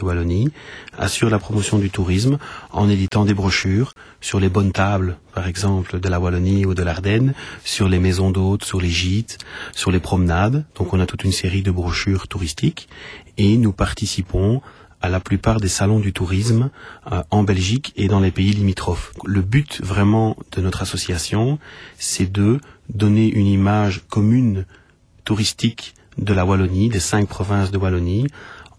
Wallonie assure la promotion du tourisme en éditant des brochures sur les bonnes tables, par exemple de la Wallonie ou de l'Ardenne, sur les maisons d'hôtes, sur les gîtes, sur les promenades. Donc on a toute une série de brochures touristiques et nous participons à la plupart des salons du tourisme euh, en Belgique et dans les pays limitrophes. Le but vraiment de notre association, c'est de donner une image commune touristique de la Wallonie, des cinq provinces de Wallonie,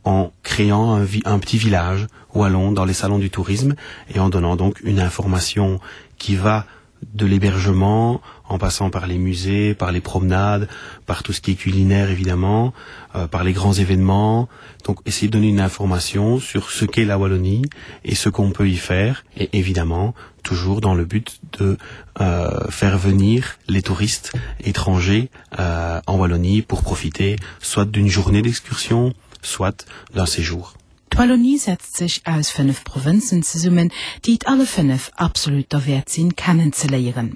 en créant un, un petit village wallon dans les salons du tourisme et en donnant donc une information qui va de l'hébergement en passant par les musées, par les promenades, par tout ce qui est culinaire évidemment, euh, par les grands événements. Donc essayer de donner une information sur ce qu'est la Wallonie et ce qu'on peut y faire et évidemment toujours dans le but de euh, faire venir les touristes étrangers euh, en Wallonie pour profiter soit d'une journée d'excursion, soit d'un séjour. D'Wallonie setzt sech aus 5 Provënzen zesummen, déi et alle 5 absolut derwäert sinn kennenzeléieren.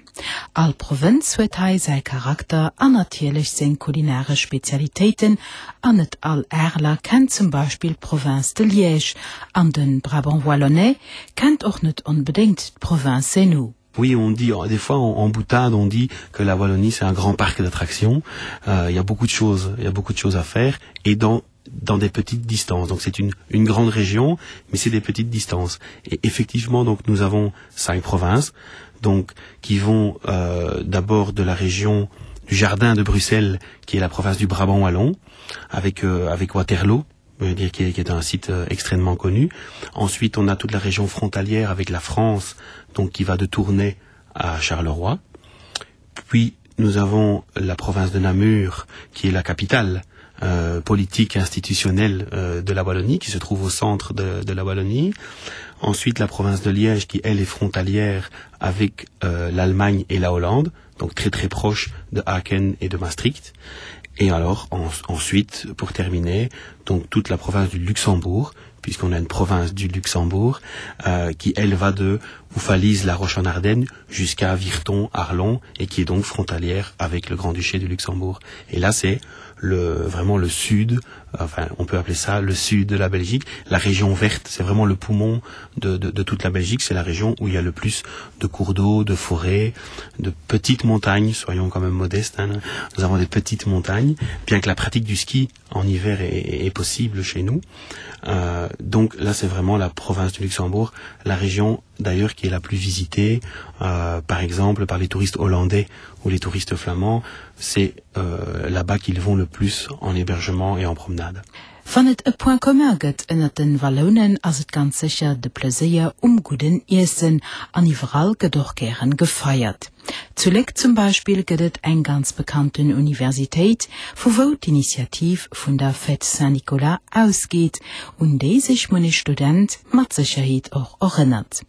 All Provënz huet hei säi Charakter an natierlech seng kulinaresch Spezialitéiten an net all Areler kennt zum Beispill d'Province de Liège an de Brabant Wallonnais kennt och net onbedéngt d'Province Hainaut. Oui, on dit des fois en, en boutade, on dit que la Wallonie c'est un grand parc d'attractions. Euh, il y a beaucoup de choses, il y a beaucoup de choses à faire et dans dans des petites distances. Donc c'est une, une grande région, mais c'est des petites distances. Et effectivement, donc nous avons cinq provinces donc qui vont euh, d'abord de la région du jardin de Bruxelles, qui est la province du Brabant wallon, avec, euh, avec Waterloo, dire qui est, qui est un site euh, extrêmement connu. Ensuite, on a toute la région frontalière avec la France, donc qui va de Tournai à Charleroi. Puis nous avons la province de Namur, qui est la capitale euh, politique institutionnelle euh, de la Wallonie, qui se trouve au centre de, de la Wallonie. Ensuite, la province de Liège, qui elle est frontalière avec euh, l'Allemagne et la Hollande, donc très très proche de Aachen et de Maastricht. Et alors en, ensuite, pour terminer, donc toute la province du Luxembourg, puisqu'on a une province du Luxembourg euh, qui elle va de Oufalise la Roche en Ardennes jusqu'à Virton Arlon et qui est donc frontalière avec le Grand-Duché du Luxembourg. Et là c'est le vraiment le sud enfin on peut appeler ça le sud de la Belgique, la région verte, c'est vraiment le poumon de, de, de toute la Belgique, c'est la région où il y a le plus de cours d'eau, de forêts, de petites montagnes, soyons quand même modestes, hein. nous avons des petites montagnes, bien que la pratique du ski en hiver est, est possible chez nous. Euh, donc là c'est vraiment la province du Luxembourg, la région d'ailleurs qui est la plus visitée, euh, par exemple par les touristes hollandais ou les touristes flamands, c'est euh, là-bas qu'ils vont le plus en hébergement et en promenade. Wann et e Point commun gëtt ënnert den Wallounen, ass et ganz sécher de Pleséier um gudden Iessen. An iwwerall gëtt och gären gefeiert. Zu Léck zum Beispill gëtt et eng ganz bekannten Universitéit, vu wou d'Initiativ vun der Fête Saint-Nicolas ausgeet, un déi sech munnech Student mat Sécherheet och erënnert.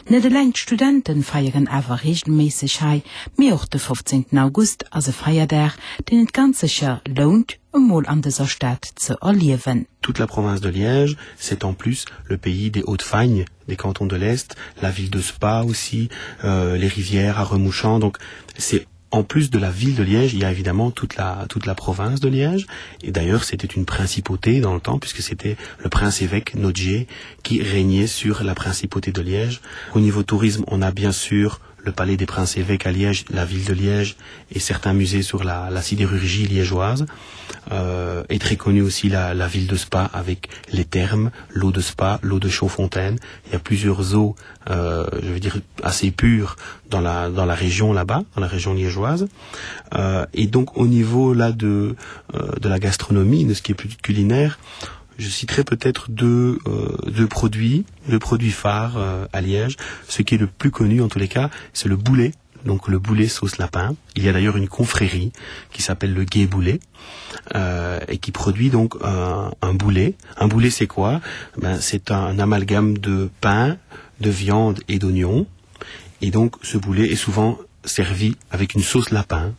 Net eleng d'Studenten feieren awer reegelméisseg hei, mee och de 15 August ass e Feierdag, deen et ganz sécher lount, emol an dëser Stad ze erliewen. Toute la province de Liège, c'est en plus le pays des Hauts-de-Fagne, des cantons de l'Est, la ville de Spa aussi, euh, les rivières à Remouchant. Donc c'est en plus de la ville de Liège, il y a évidemment toute la, toute la province de Liège. Et d'ailleurs, c'était une principauté dans le temps, puisque c'était le prince-évêque Nodger qui régnait sur la principauté de Liège. Au niveau tourisme, on a bien sûr le palais des princes-évêques à Liège, la ville de Liège et certains musées sur la, la sidérurgie liégeoise. Euh, est très connue aussi la, la ville de Spa avec les thermes, l'eau de Spa, l'eau de Chaudfontaine. Il y a plusieurs eaux euh, je veux dire assez pures dans la, dans la région là-bas, dans la région liégeoise. Euh, et donc au niveau là de, euh, de la gastronomie, de ce qui est plus culinaire, je citerai peut-être deux, euh, deux produits, deux produits phares euh, à Liège. Ce qui est le plus connu en tous les cas, c'est le boulet donc le boulet sauce lapin. Il y a d'ailleurs une confrérie qui s'appelle le Gué Boulet euh, et qui produit donc un, un boulet. Un boulet c'est quoi ben, C'est un amalgame de pain, de viande et d'oignons. Et donc ce boulet est souvent servi avec une sauce lapin.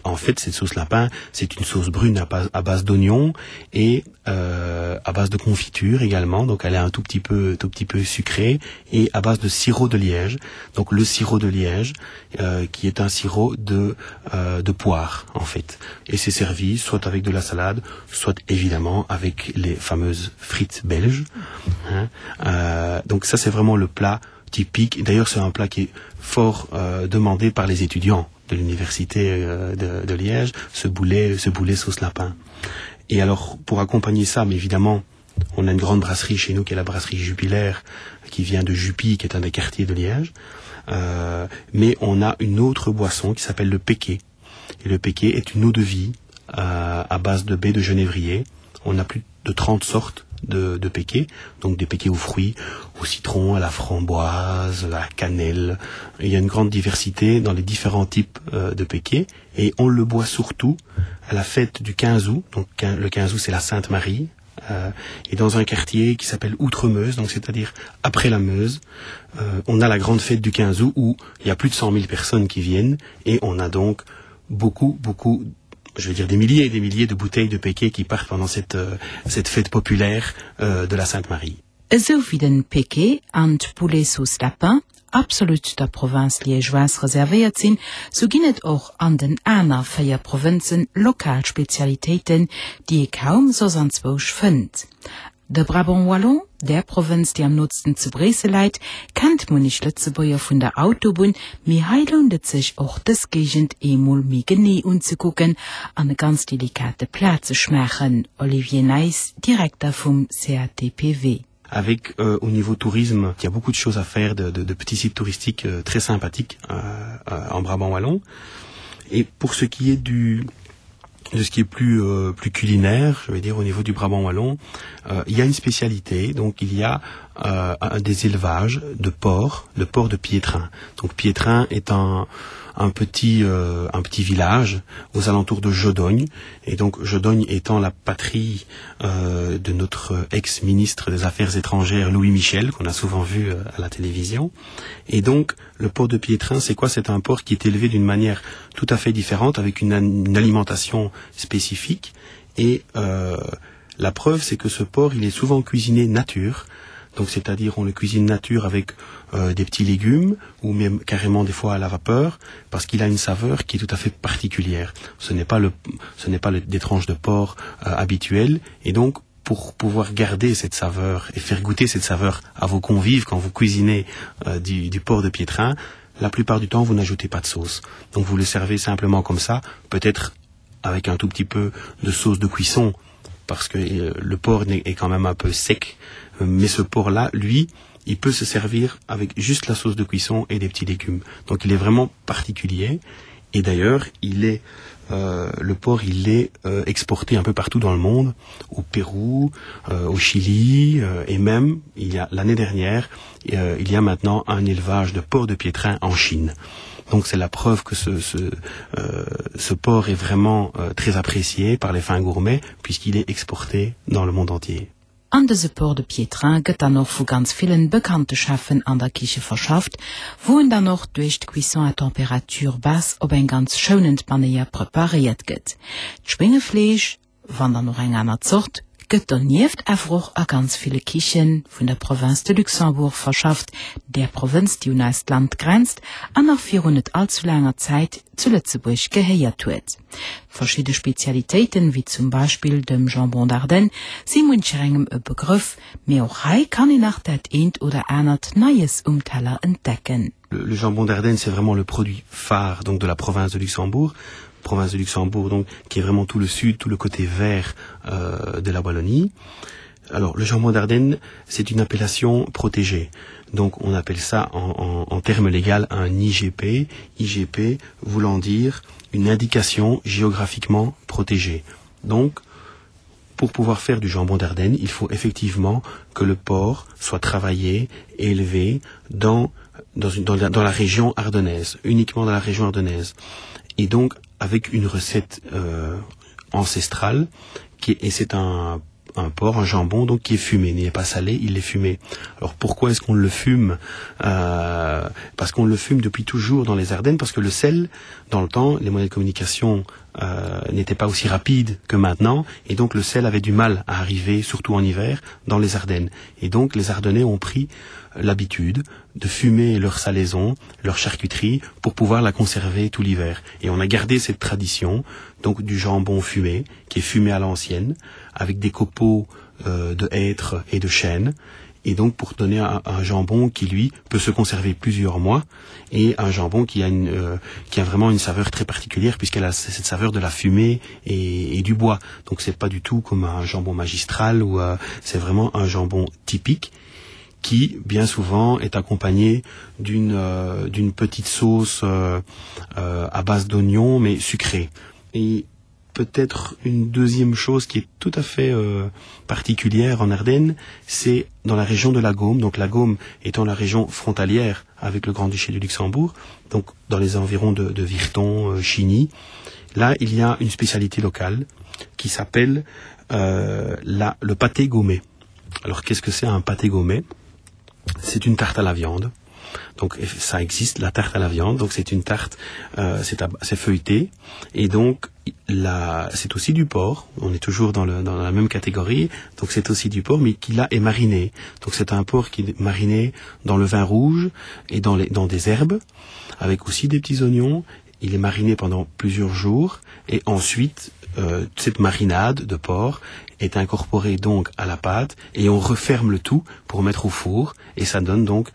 En fait, cette sauce lapin, c'est une sauce brune à base, à base d'oignons et euh, à base de confiture également. Donc elle est un tout petit peu, tout petit peu sucrée et à base de sirop de liège. Donc le sirop de liège, euh, qui est un sirop de, euh, de poire en fait. Et c'est servi soit avec de la salade, soit évidemment avec les fameuses frites belges. Hein. Euh, donc ça c'est vraiment le plat typique. D'ailleurs c'est un plat qui est fort euh, demandé par les étudiants de l'université euh, de, de Liège, ce boulet, ce boulet sauce lapin. Et alors pour accompagner ça, mais évidemment, on a une grande brasserie chez nous qui est la brasserie Jupilaire, qui vient de Jupy, qui est un des quartiers de Liège. Euh, mais on a une autre boisson qui s'appelle le péquet. Et le péquet est une eau de vie euh, à base de baie de genévrier. On a plus de 30 sortes de, de péquets, donc des péquets aux fruits, au citron, à la framboise, à la cannelle. Il y a une grande diversité dans les différents types euh, de péquets et on le boit surtout à la fête du 15 août. Donc le 15 août c'est la Sainte Marie euh, et dans un quartier qui s'appelle Outremeuse, donc c'est-à-dire après la Meuse, euh, on a la grande fête du 15 août où il y a plus de 100 000 personnes qui viennent et on a donc beaucoup beaucoup je veux dire des milliers et des milliers de bouteilles de péquet qui partent pendant cette, euh, cette fête populaire euh, de la Sainte-Marie. Esou wéi den Péquet an d'Boulet sauce lapin absolut der Province liégeoise reservéiert sinn, sou ginn et och an den aner 4 Provënzen lokal Spezialitéiten, déi ee kaum soss anzwousch fënnt. De Brabant wallon, där Provënz, déi am nootsten zu Bréissel läit, kennt munnech Lëtzebuerger vun der Autobunn, mee hei lount et sech och dës Géigend eemol méi genee unzekucken an e ganz delikate Plat ze schmaachen, Olivier Nijs, Direkter vum CATPW. Avec euh, au niveau tourisme, il y a beaucoup de choses à faire de, de, de petits sites touristiques euh, très sympathiques euh, euh, en Brabant wallon. Et pour ce qui est du, de ce qui est plus euh, plus culinaire je vais dire au niveau du brabant wallon euh, il y a une spécialité donc il y a euh, un des élevages de porc de porc de piétrain donc piétrain est un un petit euh, un petit village aux alentours de Jodogne et donc Jodogne étant la patrie euh, de notre ex-ministre des affaires étrangères Louis Michel qu'on a souvent vu euh, à la télévision et donc le port de Piétrain c'est quoi c'est un port qui est élevé d'une manière tout à fait différente avec une, une alimentation spécifique et euh, la preuve c'est que ce port il est souvent cuisiné nature donc c'est à dire on le cuisine nature avec euh, des petits légumes ou même carrément des fois à la vapeur parce qu'il a une saveur qui est tout à fait particulière ce n'est pas le ce n'est pas le, des tranches de porc euh, habituelles et donc pour pouvoir garder cette saveur et faire goûter cette saveur à vos convives quand vous cuisinez euh, du, du porc de piétrain la plupart du temps vous n'ajoutez pas de sauce donc vous le servez simplement comme ça peut-être avec un tout petit peu de sauce de cuisson parce que euh, le porc est quand même un peu sec euh, mais ce porc là lui il peut se servir avec juste la sauce de cuisson et des petits légumes donc il est vraiment particulier et d'ailleurs il est euh, le porc il est euh, exporté un peu partout dans le monde au Pérou euh, au Chili euh, et même il y a l'année dernière euh, il y a maintenant un élevage de porc de piétrain en Chine donc c'est la preuve que ce, ce, euh, ce porc est vraiment euh, très apprécié par les fins gourmets puisqu'il est exporté dans le monde entier. An dëse Porc de Piétrain gëtt dann och vu ganz villen bekannte Cheffen an der Kiche verschafft, wou en dann och duerch d'Cuisson à température basse op eng ganz schounend Manéier preparéiert gëtt. D'Schwéngefleesch, wann dann och eng aner Zort, gëtt donieft awer och a ganz ville Kiche vun der Province de Luxembourg verschafft, där Provënz, déi un eist Land grenzt an nach virun net allzu laanger Zäit zu Lëtzebuerg gehéiert huet. Verschidde Spezialitéiten, wéi zum Beispill dem Jambon d'Ardenne, si muncherengem e Begrëff, mee och hei kann een nach dat eent oder anert Neies um Teller entdecken. Le jambon d'Ardenne, c'est vraiment le produit phare donc de la province de Luxembourg, province de Luxembourg donc qui est vraiment tout le sud, tout le côté vert euh, de la Wallonie. Alors le jambon d'Ardenne, c'est une appellation protégée. Donc on appelle ça en, en, en termes légal un IGP, IGP voulant dire une indication géographiquement protégée. Donc pour pouvoir faire du jambon d'Ardenne, il faut effectivement que le porc soit travaillé, élevé dans, dans, une, dans, la, dans la région ardennaise, uniquement dans la région ardennaise. Et donc avec une recette euh, ancestrale qui, et c'est un un porc, un jambon donc qui est fumé, il n'est pas salé, il est fumé. Alors pourquoi est-ce qu'on le fume euh, Parce qu'on le fume depuis toujours dans les Ardennes, parce que le sel, dans le temps, les moyens de communication euh, n'étaient pas aussi rapides que maintenant, et donc le sel avait du mal à arriver, surtout en hiver, dans les Ardennes. Et donc les Ardennais ont pris l'habitude de fumer leur salaison, leur charcuterie, pour pouvoir la conserver tout l'hiver. Et on a gardé cette tradition donc du jambon fumé, qui est fumé à l'ancienne, avec des copeaux euh, de hêtre et de chêne. Et donc pour donner un, un jambon qui lui peut se conserver plusieurs mois et un jambon qui a, une, euh, qui a vraiment une saveur très particulière puisqu'elle a cette saveur de la fumée et, et du bois. Donc c'est pas du tout comme un jambon magistral ou euh, c'est vraiment un jambon typique qui bien souvent est accompagné d'une euh, d'une petite sauce euh, euh, à base d'oignons mais sucrée. Et peut-être une deuxième chose qui est tout à fait euh, particulière en Ardennes, c'est dans la région de la Gaume, donc la Gaume étant la région frontalière avec le Grand-Duché du Luxembourg, donc dans les environs de, de Virton, euh, Chigny, là il y a une spécialité locale qui s'appelle euh, la, le pâté gaumé. Alors qu'est-ce que c'est un pâté gaumé C'est une tarte à la viande. Donc ça existe la tarte à la viande, donc c'est une tarte euh, c'est feuilleté et donc c'est aussi du porc, on est toujours dans, le, dans la même catégorie, donc c'est aussi du porc mais qui là est mariné. Donc c'est un porc qui est mariné dans le vin rouge et dans, les, dans des herbes avec aussi des petits oignons. Il est mariné pendant plusieurs jours et ensuite euh, cette marinade de porc est incorporée donc à la pâte et on referme le tout pour mettre au four et ça donne donc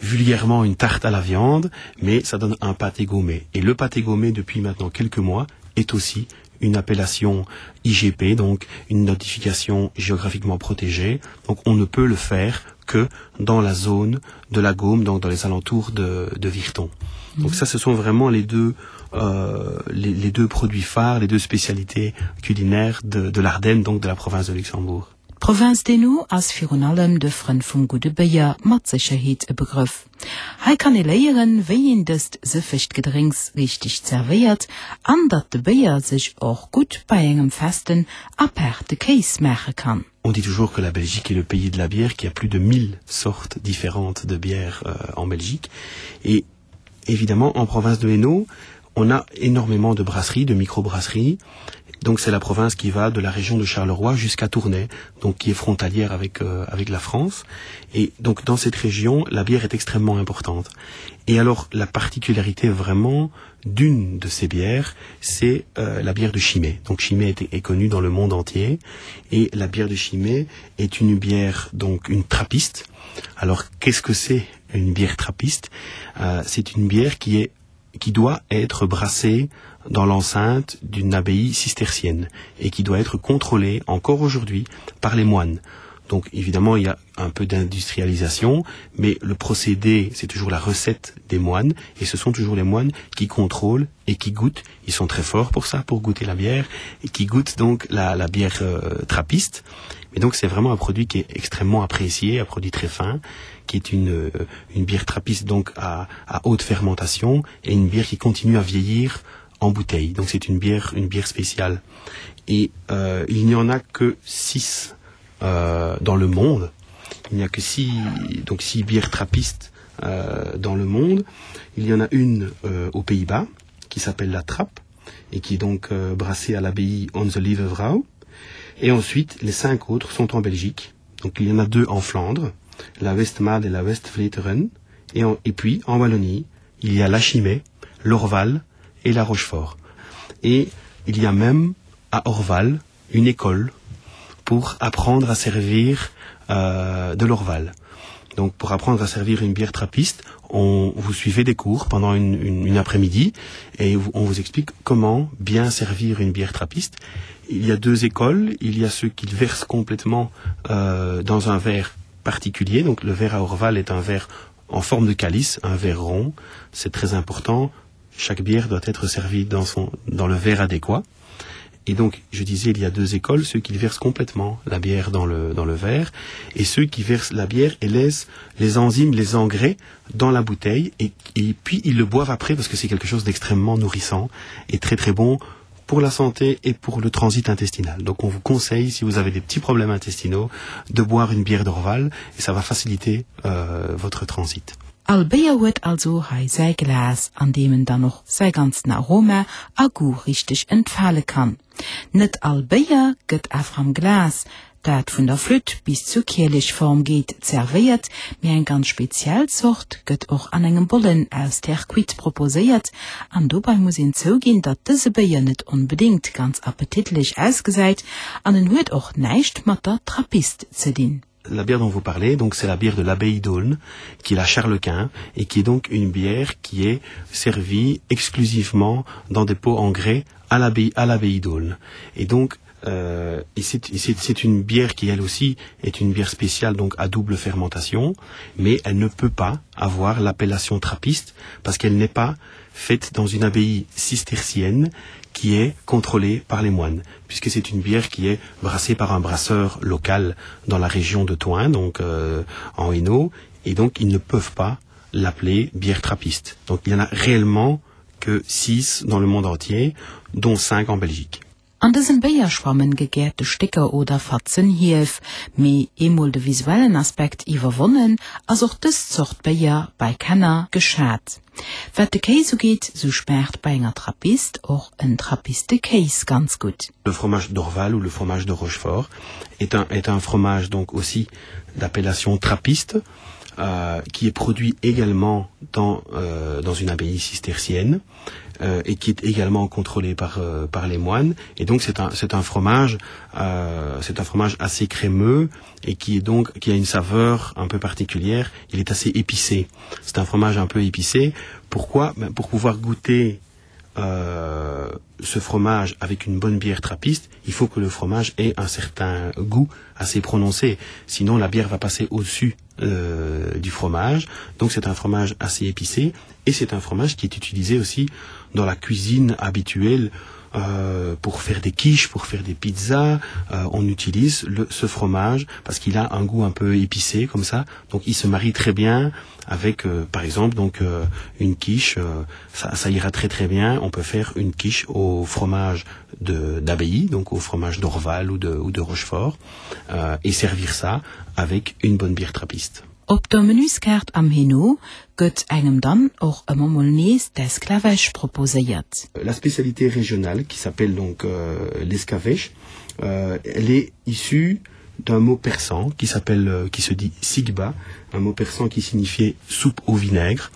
vulgairement une tarte à la viande, mais ça donne un pâté gommé. Et le pâté gommé, depuis maintenant quelques mois, est aussi une appellation IGP, donc une notification géographiquement protégée. Donc on ne peut le faire que dans la zone de la Gaume, donc dans les alentours de, de Virton. Mmh. Donc ça, ce sont vraiment les deux, euh, les, les deux produits phares, les deux spécialités culinaires de, de l'Ardenne, donc de la province de Luxembourg. D'Provënz d'Hainaut ass virun allem de Frënn vum gudde Béier mat Sécherheet e Begrëff. Hei kann ee léieren, wéi een dëst sëffegt Gedrénks richteg zerwéiert an datt de Béier sech och gutt bei engem festen apaarte Kéis maache kann. On dit toujours que la Belgique est le pays de la bière, qu'il y a plus de 1000 sortes différentes de bières euh, en Belgique. Et évidemment, en province de Hainaut, on a énormément de brasseries, de microbrasseries. Donc c'est la province qui va de la région de Charleroi jusqu'à Tournai, donc qui est frontalière avec, euh, avec la France. Et donc dans cette région, la bière est extrêmement importante. Et alors la particularité vraiment d'une de ces bières, c'est euh, la bière de Chimay. Donc Chimay est, est connue dans le monde entier et la bière de Chimay est une bière donc une trappiste. Alors qu'est-ce que c'est une bière trappiste euh, C'est une bière qui est qui doit être brassée dans l'enceinte d'une abbaye cistercienne et qui doit être contrôlée encore aujourd'hui par les moines. Donc évidemment, il y a un peu d'industrialisation, mais le procédé, c'est toujours la recette des moines, et ce sont toujours les moines qui contrôlent et qui goûtent. Ils sont très forts pour ça, pour goûter la bière, et qui goûtent donc la, la bière euh, trappiste. Et donc c'est vraiment un produit qui est extrêmement apprécié, un produit très fin, qui est une, euh, une bière trappiste donc à, à haute fermentation et une bière qui continue à vieillir en bouteille. Donc c'est une bière, une bière spéciale. Et euh, il n'y en a que six euh, dans le monde. Il n'y a que six, donc six bières trappistes euh, dans le monde. Il y en a une euh, aux Pays-Bas qui s'appelle la Trappe et qui est donc euh, brassée à l'abbaye Onze Lieve-Vrouw. Et ensuite, les cinq autres sont en Belgique. Donc il y en a deux en Flandre, la Westmalle et la Westvleteren. Et, en, et puis en Wallonie, il y a la Chimay, l'Orval et la Rochefort. Et il y a même à Orval une école pour apprendre à servir euh, de l'Orval. Donc pour apprendre à servir une bière trappiste, on vous suivez des cours pendant une, une, une après-midi et on vous explique comment bien servir une bière trappiste. Il y a deux écoles, il y a ceux qui le versent complètement euh, dans un verre particulier. Donc le verre à Orval est un verre en forme de calice, un verre rond, c'est très important. Chaque bière doit être servie dans, son, dans le verre adéquat. Et donc, je disais, il y a deux écoles, ceux qui versent complètement la bière dans le, dans le verre et ceux qui versent la bière et laissent les enzymes, les engrais dans la bouteille et, et puis ils le boivent après parce que c'est quelque chose d'extrêmement nourrissant et très très bon pour la santé et pour le transit intestinal. Donc on vous conseille, si vous avez des petits problèmes intestinaux, de boire une bière d'Orval et ça va faciliter euh, votre transit. All Béier huet also hei säi Glas, an deem en dann och säi ganzen Aroma a Goût richteg entfale kann. Net all Béier gëtt awer am Glas, dat vun der Flütt bis zur Kielechform geet, zerwéiert, mee eng ganz speziell Zort gëtt och an engem Bollen aus Terre cuite proposéiert. An dobei muss een zouginn, datt dëse Béier net onbedéngt ganz appetitlech ausgesäit an en huet och näischt mat der Trappist ze dinn. La bière dont vous parlez, donc c'est la bière de l'abbaye d'Aulne, qui est la Charlequin et qui est donc une bière qui est servie exclusivement dans des pots en grès à l'abbaye à l'abbaye d'Aulne. Et donc euh, c'est une bière qui elle aussi est une bière spéciale donc à double fermentation, mais elle ne peut pas avoir l'appellation trappiste parce qu'elle n'est pas faite dans une abbaye cistercienne qui est contrôlée par les moines, puisque c'est une bière qui est brassée par un brasseur local dans la région de Toin, donc euh, en Hainaut, et donc ils ne peuvent pas l'appeler bière trappiste. Donc il y en a réellement que six dans le monde entier, dont cinq en Belgique. An dësem Béier schwammen gegäerte Stécker oder Fatzen Hief. Mee eemol de visuellen Aspekt iwwerwonnen, ass och dës Zort Béier bei Kenner geschat. Wat de Kéis ugeet, sou schmaacht bei enger Trappist och en Trappistekéis ganz gutt. Le fromage d'Orval ou le fromage de Rochefort est un est un fromage donc aussi d'appellation trappiste euh, qui est produit également dans, euh, dans une abbaye cistercienne euh, et qui est également contrôlé par, euh, par les moines. Et donc c'est un, un fromage euh, c'est un fromage assez crémeux et qui est donc qui a une saveur un peu particulière. Il est assez épicé. C'est un fromage un peu épicé. Pourquoi ben, Pour pouvoir goûter euh, ce fromage avec une bonne bière trappiste, il faut que le fromage ait un certain goût assez prononcé. Sinon la bière va passer au-dessus euh, du fromage. Donc c'est un fromage assez épicé et c'est un fromage qui est utilisé aussi dans la cuisine habituelle euh, pour faire des quiches, pour faire des pizzas, euh, on utilise le, ce fromage parce qu'il a un goût un peu épicé comme ça. Donc il se marie très bien avec euh, par exemple donc euh, une quiche, euh, ça, ça ira très très bien. On peut faire une quiche au fromage d'abbaye, donc au fromage d'Orval ou de, ou de Rochefort euh, et servir ça avec une bonne bière trappiste. Op der Menüskaart am Hainaut gëtt engem dann och ëmmer mol nees d'Esclavèche proposéiert. La spécialité régionale qui s'appelle donc euh, l'escavèche, euh, elle est issue d'un mot persan qui s'appelle euh, qui se dit sigba, un mot persan qui signifiait soupe au vinaigre.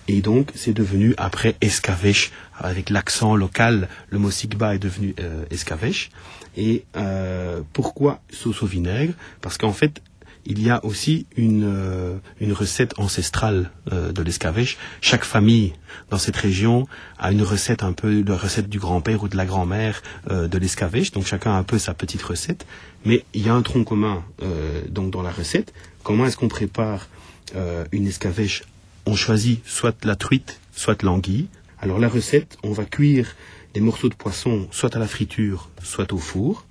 Et donc c'est devenu après escavèche avec l'accent local, le mot sigba est devenu euh, escavèche. Et euh, pourquoi sauce au vinaigre Parce qu'en fait, il y a aussi une, euh, une recette ancestrale euh, de l'escavèche. Chaque famille dans cette région a une recette un peu la recette du grand-père ou de la grand-mère euh, de l'escavèche. Donc chacun a un peu sa petite recette. Mais il y a un tronc commun euh, donc dans la recette. Comment est-ce qu'on prépare euh, une escavèche On choisit soit la truite, soit l'anguille. Alors la recette, on va cuire des morceaux de poisson soit à la friture, soit au four.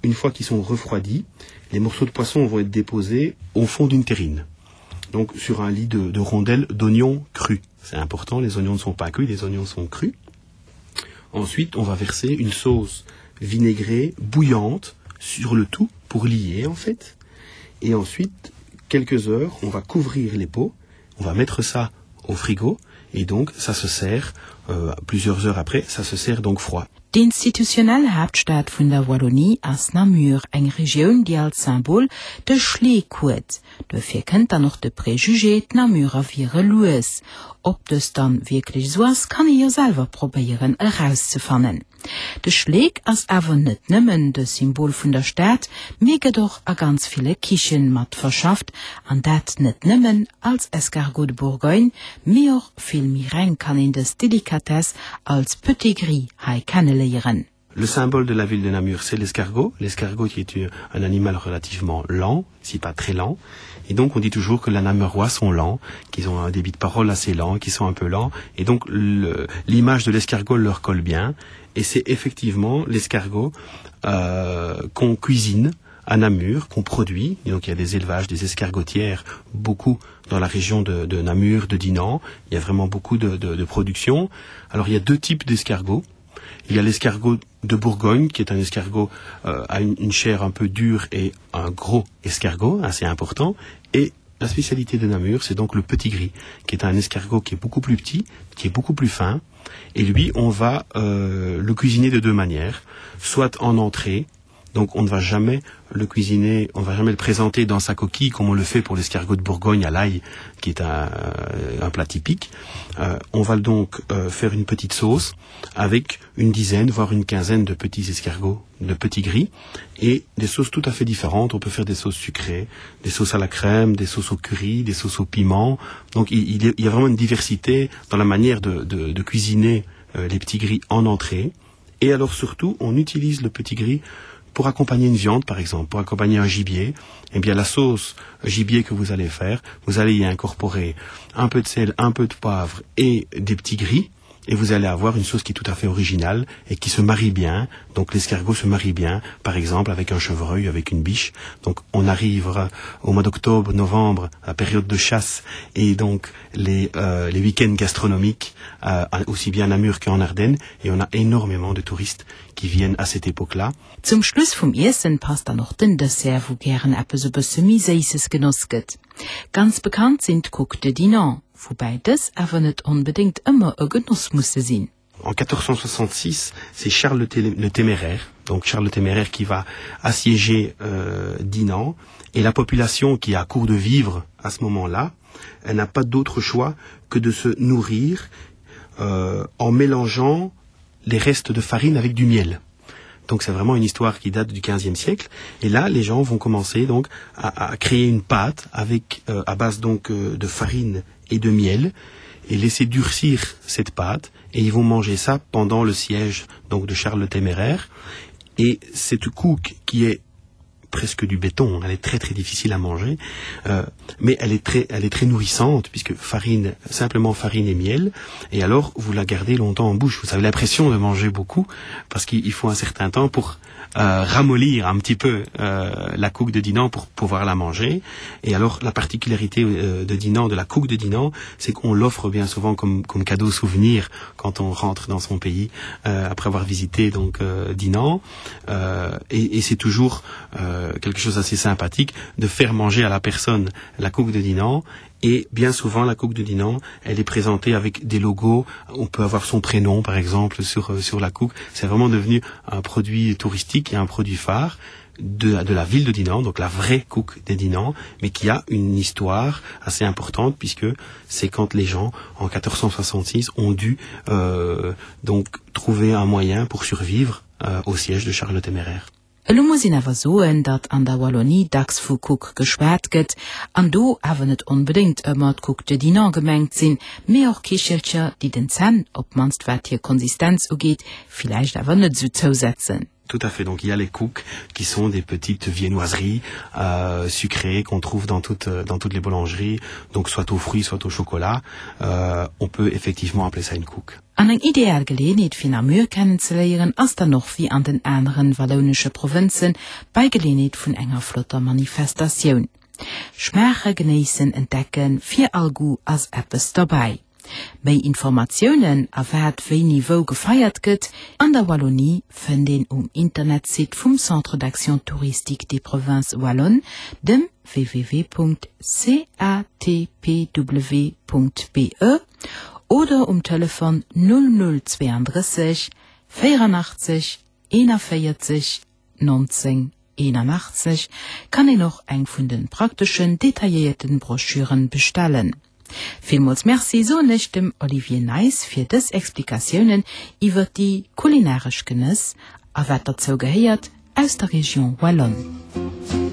Une fois qu'ils sont refroidis, les morceaux de poisson vont être déposés au fond d'une terrine, donc sur un lit de, de rondelles d'oignons crus. C'est important, les oignons ne sont pas cuits, les oignons sont crus. Ensuite, on va verser une sauce vinaigrée bouillante sur le tout pour lier en fait. Et ensuite, quelques heures, on va couvrir les pots, on va mettre ça au frigo et donc ça se sert euh, plusieurs heures après, ça se sert donc froid. D'institutionell Haaptstad vun der Wallonie ass Namur, eng Regioun, déi als Symbol de Schleek huet. Duerfir kënnt dann och de Préjugé, d'Namurer wiere lues. Ob dëst dann wierklech esou ass, kann ee jo selwer probéieren erauszefannen. De Schleek ass awer net nëmmen de Symbol vun der Stad, mee gëtt och a ganz ville Kichen mat verschafft, an dat net nëmmen als Escargot de Bourgogne, mee och Vill méi reng kann een dës Delikatess als Petit Gris hei kenneléieren. Le symbole de la ville de Namur, c'est l'escargot, l'escargot qui est un animal relativement lent, si pas très lent. Et donc on dit toujours que la Namurois sont lents, qu'ils ont un débit de parole assez lent, qu'ils sont un peu lents. Et donc l'image de l'escargot leur colle bien. Et c'est effectivement l'escargot euh, qu'on cuisine à Namur, qu'on produit. Et donc il y a des élevages, des escargotières, beaucoup dans la région de, de Namur, de Dinan. Il y a vraiment beaucoup de, de, de production. Alors il y a deux types d'escargots. Il y a l'escargot de Bourgogne, qui est un escargot euh, à une, une chair un peu dure et un gros escargot assez important. Et la spécialité de Namur, c'est donc le petit gris, qui est un escargot qui est beaucoup plus petit, qui est beaucoup plus fin. Et lui, on va euh, le cuisiner de deux manières, soit en entrée. Donc on ne va jamais le cuisiner, on ne va jamais le présenter dans sa coquille comme on le fait pour l'escargot de Bourgogne à l'ail, qui est un, euh, un plat typique. Euh, on va donc euh, faire une petite sauce avec une dizaine, voire une quinzaine de petits escargots de petits gris et des sauces tout à fait différentes. On peut faire des sauces sucrées, des sauces à la crème, des sauces au curry, des sauces au piment. Donc il, il, il y a vraiment une diversité dans la manière de, de, de cuisiner euh, les petits gris en entrée. Et alors surtout, on utilise le petit gris pour accompagner une viande, par exemple, pour accompagner un gibier. Eh bien, la sauce gibier que vous allez faire, vous allez y incorporer un peu de sel, un peu de poivre et des petits gris et vous allez avoir une sauce qui est tout à fait originale et qui se marie bien. Donc l'escargot se marie bien, par exemple avec un chevreuil, avec une biche. Donc on arrivera au mois d'octobre, novembre, la période de chasse et donc les, euh, les week-ends gastronomiques, euh, aussi bien à Namur qu'en Ardennes et on a énormément de touristes qui viennent à cette époque-là. Zum Schluss vum Iessen passt dann och den Dessert, wou gären eppes e bësse méi Séisses genoss gëtt. Ganz bekannt sinn d'Couques de Dinant, woubäi dës awer net onbedéngt ëmmer e Genoss musse sinn. En 1466, c'est Charles le Téméraire, donc Charles le Téméraire qui va assiéger euh, Dinan et la population qui est à court de vivre à ce moment-là, elle n'a pas d'autre choix que de se nourrir euh, en mélangeant les restes de farine avec du miel. Donc c'est vraiment une histoire qui date du 15e siècle. Et là, les gens vont commencer donc à, à créer une pâte avec euh, à base donc euh, de farine et de miel et laisser durcir cette pâte et ils vont manger ça pendant le siège donc de Charles le Téméraire. Et cette couque qui est presque du béton, elle est très très difficile à manger, euh, mais elle est très elle est très nourrissante puisque farine simplement farine et miel et alors vous la gardez longtemps en bouche vous avez l'impression de manger beaucoup parce qu'il faut un certain temps pour euh, ramollir un petit peu euh, la couque de Dinan pour pouvoir la manger et alors la particularité euh, de Dinan de la couque de Dinan c'est qu'on l'offre bien souvent comme comme cadeau souvenir quand on rentre dans son pays euh, après avoir visité donc euh, Dinan euh, et, et c'est toujours euh, quelque chose assez sympathique de faire manger à la personne la couque de Dinan et bien souvent la couque de Dinan elle est présentée avec des logos on peut avoir son prénom par exemple sur euh, sur la couque c'est vraiment devenu un produit touristique et un produit phare de, de la ville de Dinan donc la vraie couque des Dinan mais qui a une histoire assez importante puisque c'est quand les gens en 1466 ont dû euh, donc trouver un moyen pour survivre euh, au siège de Charles Téméraire. Elo muss een awer soen, datt an der Wallonie dacks vu Couque geschwat gëtt, an do awer net onbedéngt ëmmer d'Couque de Dinant gemengt sinn, mee och Kichelcher, déi den Zänn, op d'mannst wat hir Konsistenz ugeet, villäicht awer net esou zousetzen. Tout à fait. Donc il y a les couques qui sont des petites viennoiseries euh, sucrées qu'on trouve dans toutes, dans toutes les boulangeries, donc soit aux fruits, soit au chocolat. Euh, on peut effectivement appeler ça une couque. An eng ideal Geleeënheet fir Namur kennenzeléieren ass dann och wéi an den aneren wallounesche Provënzen bei Geleeënheet vun enger flotter Manifestatioun. Schmaache, genéissen, entdecken, fir all Goût ass eppes derbäi. Méi Informatiounen a wat wéini wou gefeiert gëtt an der Wallonie fënnt een um Internetsite vum Centre d'action touristique des provinces wallonnes, dem www.catpw.be. Oder um Telefon 0032 84 41 19 81 kann een och eng vun den prakteschen, detailléierten Broschüren bestellen. Villmools Merci soen ech dem Olivier Nijs fir dës Explikatiounen iwwert déi kulinaresch Genëss a wat derzou gehéiert aus der Région Wallonne.